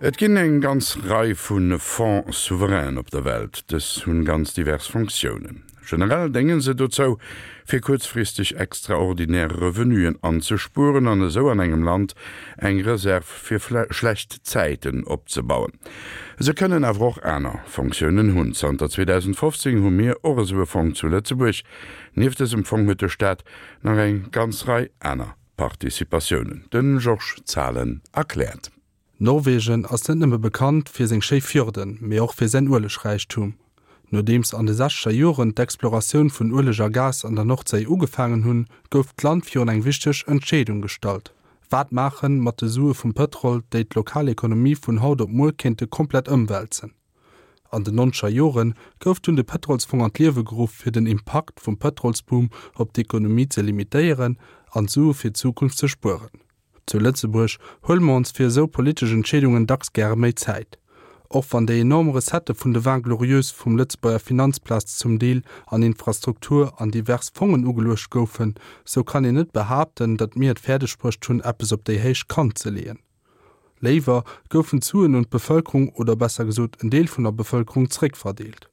Et ginn eng ganz Rei vu Fonds souverainen op der Welt. Dës hunn ganz divers Fonctiounen. Generell dénge se dozou, fir kuerzfristeg extraordinär Revenuen anzespueren an esou an engem Land eng Reserv fir schlecht Zäiten opzebauen. Se kënnen awer och aner Fonctiounen hunn. Zanter 2015 hu mir och esou e Fong zu Lëtzebuerg. Nieft dësem Fong huet de Staat nach eng ganz Rei aner Participatiounen. De Georges Zahlen erkläert. Norwegen ass net nëmme bekannt fir seng schéi Fjorden, mee och fir säin Uelegräichtum. Nodeems an de sechzeger Joren d'Exploratioun vun Ueleg a Gas an der Nordséi ugefaangen hunn, gouf d'Land virun eng wichteg Entscheedung gestallt, Wat maache mat de Sue vum Pëtrol, déi d'lokal Ekonomie vun haut op muer kéinte komplett ëmwälzen? An den nonzeger Jore gouf dunn de Pëtrolsfong an d'Liewe geruff, fir den Impakt vum Pëtrolsboom op d'Ekonomie ze limitéieren an Sue fir d'Zukunft ze spueren. Zu Lëtzebuerg huele mer ons fir esou politesch Entscheedungen dacks gäre méi Zäit. Och wann déi enorm Recettë vun de Vingt Glorieuses vum Lëtzebuerger Finanzplaz zum Deel an Infrastruktur an divers Fongen ugeluecht goufen, sou kann een net behaapten, datt mir et fäerdeg bruecht hunn, eppes op déi héich Kant ze leeën. Léiwer goufen d'Suen un d'Bevëlkerung, oder besser gesot en Deel vun der Bevëlkerung, zréckverdeelt.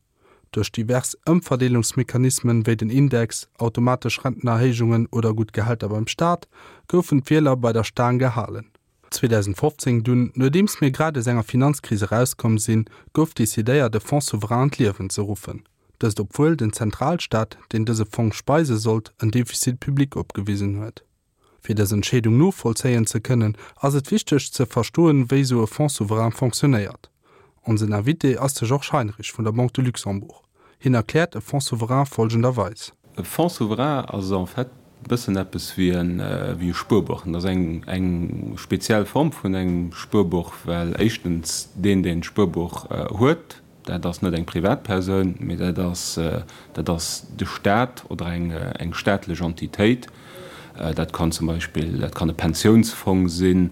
Duerch divers Ëmverdeelungsmechanismen, wéi den Index, automatesch Rentenerhéijungen oder gutt Gehälter beim Staat, goufen d'Wieler bei der Staang gehalen. 2015 dunn, nodeems mir grad aus enger Finanzkris erauskomm sinn, gouf decidéiert e Fonds souverain an d'Liewen ze ruffen. Dëst obwuel den Zentralstaat, deen dëse Fong speise sollt, en Déficit public opgewisen huet. Fir dës Entscheedung novollzéien ze kënnen, ass et wichteg ze verstoen, wéi esou e Fonds souverain fonctionnéiert. Onsen Invité ass de Georges Heinrich vun der Banque de Luxembourg. Hien erkläert e Fonds souverain folgenderweis. E Fonds souverain ass en fait e bëssen eppes wéi e Spuerbuch. Et ass eng speziell Form vun engem Spuerbuch, well éischtens deen, deen d'Spuerbuch huet, Dat ass net eng Privatpersoun, mee dat ass, dat ass de Staat oder eng, eng staatlech Entitéit. Dat kann zum Beispill, dat kann e Pensiounsfong sinn,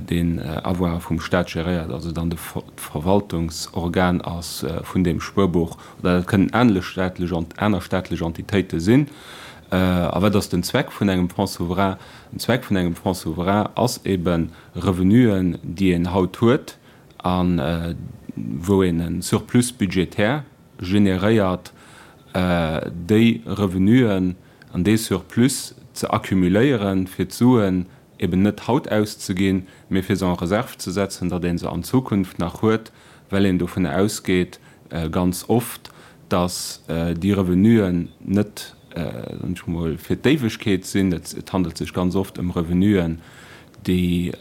deen Avoire vum Staat geréiert, also dann de d'Verwaltungsorgan ass vun deem Spuerbuch, oder dat kënnen aner staatlech, aner staatlech Entitéite sinn. A wat ass den Zweck vun engem Fonds souverain? Den Zweck vun engem Fonds souverain ass eben, Revenuen, déi een haut huet, a wou een e Surplus budgétaire generéiert, déi Revenuen an dee Surplus ze accumuléieren, fir d'Suen eben net haut auszeginn, mee fir se en réserve ze setzen, datt ee se an Zukunft nach huet, well een dovun ausgeet, ganz oft, datt déi Revenuen net, soen ech mol, fir d'Éiwegkeet sinn. Et handelt sech ganz oft ëm Revenuen, déi,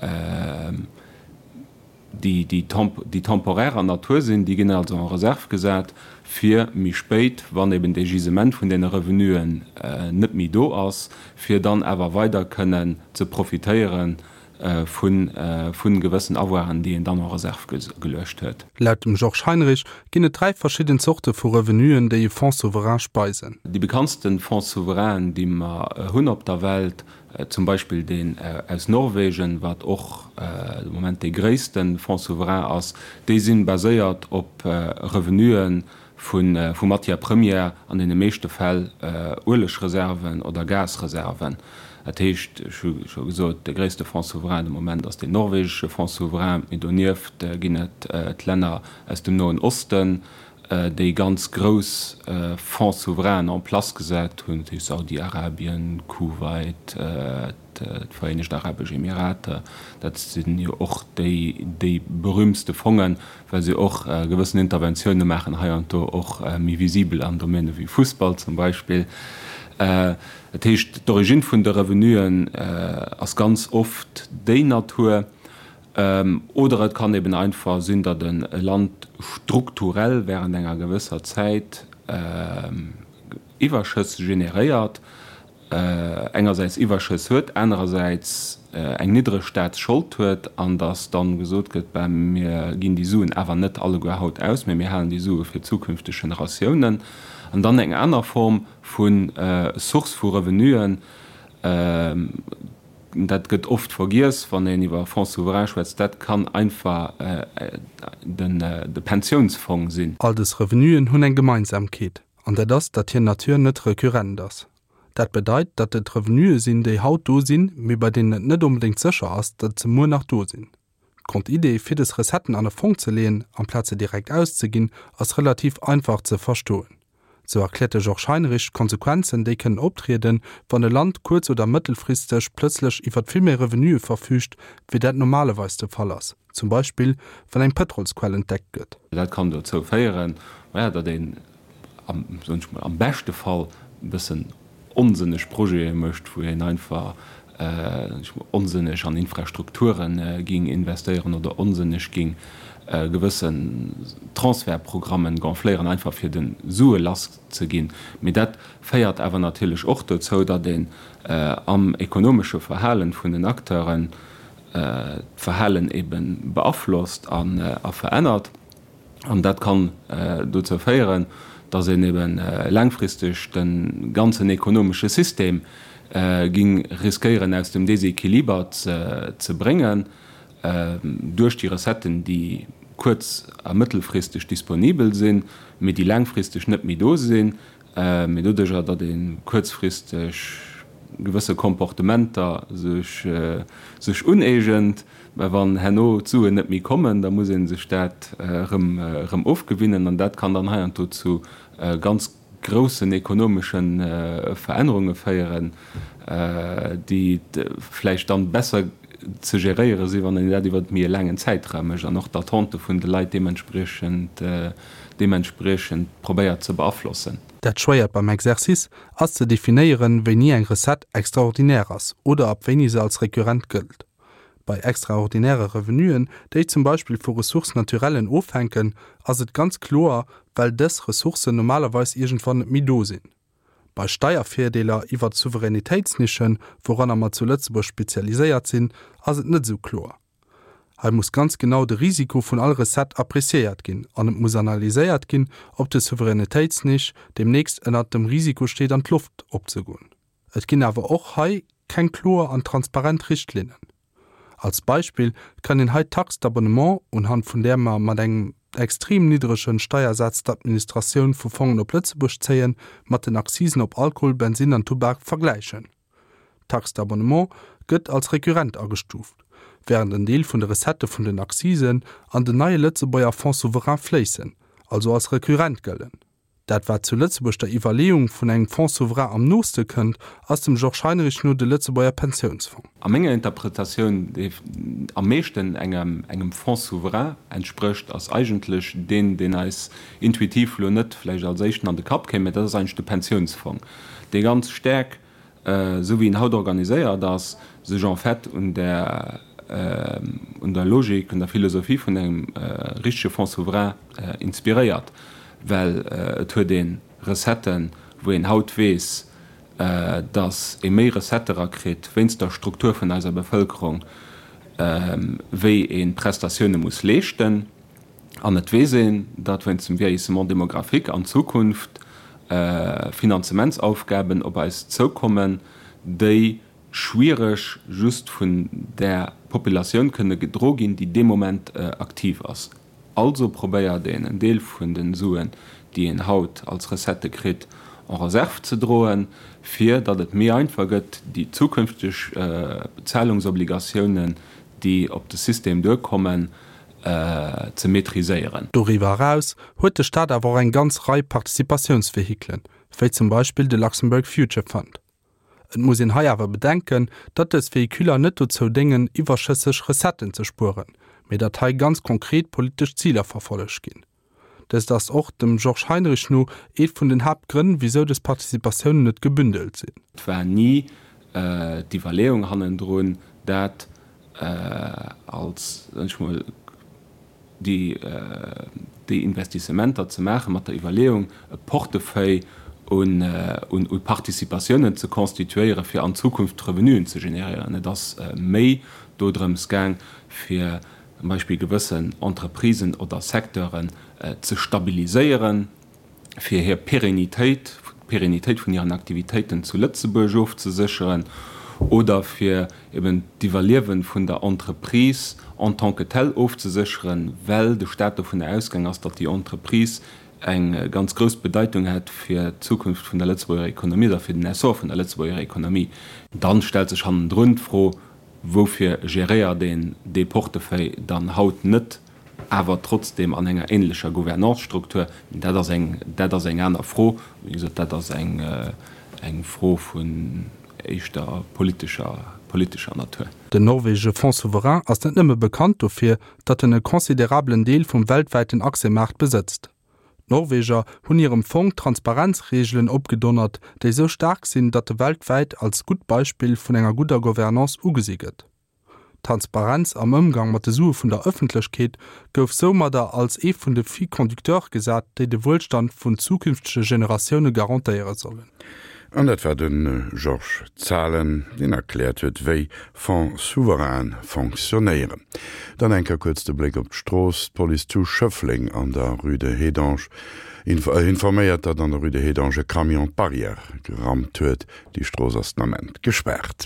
déi déi temporärer Natur sinn, déi ginn also en réserve gesat, fir méi spéit, wann eben dee Gisement vun deene Revenuen net méi do ass, fir dann awer weider kënnen ze profitéiere vu gewëssen Avoiren, déi een dann en réserve geluecht huet. Laut dem Georges Heinrich ginn et 3 verschidden Zorte vu Revenuen, déi e Fonds souverain speisen. Déi bekanntste Fonds souverainen, déi mer hunn op der Welt, Zum Beispill deen aus Norwegen, wat och de Moment dee gréisste Fonds souverain ass. Déi si baséiert op Revenue vu Matières premières, an deene meeschte Fäll Uelegreserven oder Gasreserven. Dat heescht, ech hu scho gesot, de gréisste Fonds souverain de Moment ass deen norwegesche Fonds souverain. Mee donieft ginn et d'Länner aus dem Noen Osten, déi ganz grouss Fonds souverainen en place gesat hunn, dat heescht Saudi-Arabien, Kuwait, d'Vereenegt Arabesch Emirater, dat sinn jo och déi déi berühmtste Fongen, well se och gewëssen Interventioune maachen, hei an do och méi visibel an Domäne wéi Fussball zum Beispill. Dat heescht, d'Origine vun de Revenuen ass ganz oft déi Natur. Oder et kann eben einfach sinn, datt e Land strukturell während enger gewësser Zäit Iwwerschëss generéiert, engersäits Iwwerschëss huet, anerersäits eng niddreg Staatsschold huet, an datt dann gesot gëtt, ben, mir ginn déi Suen awer net alleguer haut aus, mä mir halen déi Sue fir zukünfteg Generatiounen. An dann eng aner Form vu Source vu Revenuen, Dat gëtt oft vergiess, wann een iwwer Fonds souverain schwätzt. Dat kann einfach de Pensiounsfong sinn. All dës Revenuen hunn eng Gemeinsamkeet, an dat ass, datt hir Nature net recurrent ass. Dat bedeit, datt et Revenue sinn, déi haut do sinn, mee bei deenen et net onbedéngt sécher ass, datt se muer nach do sinn. D'Grondidee, fir des Recetten an e Fong ze leeën, amplaz se direkt auszeginn, ass relativ einfach ze verstoen. Sou erkläert de Georges Heinrich d'Konsequenzen, déi kënnen optrieden, wann e Land kuerz oder mëttelfristeg plëtzlech iwwert vill méi Revenuë verfüügt, wéi dat normalerweis de Fall ass, zum Beispill wann eng Pëtrolsquell entdeckt gëtt. Dat kann dozou féieren, maja, datt een am, soen ech mol, am beschte Fall e bëssen onsënneg Projete mécht, wou een einfach, soen ech mol, onsënneg an Infrastrukture ging investéieren oder onsënneg ging gewëssen Transfertprogrammen gonfléieren, einfach fir de Sue lass ze ginn. Mee dat féiert awer natierlech och dozou, datt een am ekonomesche Verhalen vun den Acteuren d'Verhalen ebe beaflosst a verännert. An dat kann dozou féieren, datt een ebe laangfristeg de ganzen ekonomesche System ging riskéieren aus dem Desequiliber ze bréngen, duerch déi Recetten, déi kuerz a mëttelfristeg disponibel sinn, mee déi laangfristeg net méi do sinn, mee doduerjer, datt ee kuerzfristeg gewësse Comportementer sech uneegent, mä wann herno d'Suen net méi kommen, da muss ee sech dat erëm ofgewinnen an dat kann dann heiansdo zu ganz groussen ekonomesche Verännerunge féieren, déi vläicht dann besser ze geréiere sinn, wann een dat iwwer méi e laangen Zäitraum mécht an och d'Attente vun de Leit deementspriechend deementspriechend probéiert ze beaflossen. Dat Schwéiert beim Exercice ass ze definéieren, wéini eng Recette extraordinaire ass oder ab wéini se als recurrent gëllt. Bei extraordinäre Revenuen, déi zum Beispill vu Ressources naturellen ofhänken, ass et ganz kloer, well dës Ressourcen normalerweis iergendwann net méi do sinn. Bei Steiervirdeeler iwwert Souveränitéitsnischen, wouranner mer zu Lëtzebuerg spezialiséiert sinn, ass et net esou kloer. Hei muss ganz genau de Risiko vun all Recette appréciéiert ginn an et muss analyséiert ginn, ob de Souveränitéitsnisch deemnächst ënnert dem Risiko steet an d'Loft opzegoen. Et ginn awer och hei keng kloer an transparent Richtlinnen. Als Beispill kann een hei d'Taxe d'abonnement, unhand vun där mer mat engem extrem niddregen Steiersaz d'Administratioun vu Fongen op Lëtzebuerg zéien, mat den Akzisen op Alkohol, Bensin an Tubak vergläichen. D'Taxe d'abonnement gëtt als recurrent agestuuft, während en Deel vun de Recettë vun den Akzisen an den neie Lëtzebuerger Fonds souverain fléissen, also als recurrent gëllen. Dat wat zu Lëtzebuerg der Iwwerleeung vun engem Fonds souverain am nooste kënnt, ass dem Georges Heinrich no de Lëtzebuerger Pensiounsfong. A menger Interpretatioun, dee am meeschten engem Fonds souverain entsprécht, ass eigentlech deen, deen eis intuitiv elo net vläicht als éischten an de Kapp kéim, mä dat ass eigentlech de Pensiounsfong, dee ganz staark esou wéi en haut organiséiert ass, sech en fait un der, un der Logik, un der Philosophie vun engem richtege Fonds souverain inspiréiert, well et huet ee Recetten, wou een haut weess, datt ee méi Recettë erakritt wéinst der Struktur vun eiser Bevëlkerung, wéi ee Prestatioune muss leeschten. An et weess een, datt wéinst dem Vieillissement démographique an Zukunft Finanzementsaufgaben op eis zoukommen, déi schwiereg just vun där Populatioun kënne gedro ginn, déi dee Moment aktiv ass. Also probéiert een, en Deel vun de Suen, déi een haut als Recettë kritt, en réserve ze droen, fir datt et méi einfach gëtt, déi zukünfteg Bezahlungsobligatiounen, déi op de System duerkommen, ze maîtriséieren. Doriwwer eraus huet de Staat awer och eng ganz Rei Participatiounsvehikelen, wéi zum Beispill de Luxembourg Future Fund. Et muss een hei awer bedenken, datt dës Véhiculer net dozou déngen, iwwerschësseg Recetten ze spueren, mee datt hei ganz konkret politesch Ziler verfollegt ginn. Dëst ass och dem Georges Heinrich no eet vun den Haaptgrënn, wisou dës Participatiounen net gebündelt sinn. Et war ni d'Iwwerleeung hannendrun, dat als, soen ech mol, déi, déi Investissementer ze maachen, mat der Iwwerleeung, e Portefeuille un, un Participatiounen ze constituéieren, fir an Zukunft Revenuen ze generéieren. Et ass méi dodrëms gaang, fir zum Beispill gewëssen Entreprisen oder Secteuren ze stabiliséieren, fir hir Pérennitéit, d'Pérennitéit vun hiren Aktivitéiten zu Lëtzebuerg ofzesécheren oder fir eben d'Iwwerliewe vun der Entreprise en tant que telle ofzesécheren, well de Stat dovunner ausgaang ass, datt déi Entreprise eng ganz grouss Bedeitung hätt fir d'Zukunft vun der Lëtzebuerger Économie oder fir den Essor vun der Lëtzebuerger Économie. Dann stellt sech hannendrun d'Fro. Woufir geréiert een dee Portefeuille dann haut net awer trotzdem an enger ähnlecher Gouvernance-Struktur? Dat ass eng, dat ass eng aner Fro. Wéi gesot, dat ass eng, eng Fro vun éischter politescher, politescher Natur. Den norwegesche Fonds souverain ass net nëmme bekannt dofir, datt en e considerabelen Deel vum weltwäiten Aktiemaart besëtzt. D'Norweger hunn hirem Fong Transparenzreegelen opgedonnert, déi sou staark sinn, datt e weltwäit als gutt Beispill vun enger gudder Gouvernance ugesi gëtt. D'Transparenz am Ëmgang mat de Sue vun der Ëffentlechkeet gouf soumadder als ee vun de Fils conducteurs gesat, déi de Wuelstand vun zukünftege Generatioune garantéiere sollen. An dat war de Georges Zahlen, deen erkläert huet, wéi Fonds souverains fonctionnéieren. Dann eng Kéier kuerz de Bléck op d'Strooss. D'Police zu Schëffleng an der Rue de Hédange informéiert, datt an der Rue de Hédange e Camion d'Barrière gerammt huet. Déi Strooss ass den Ament gespaart.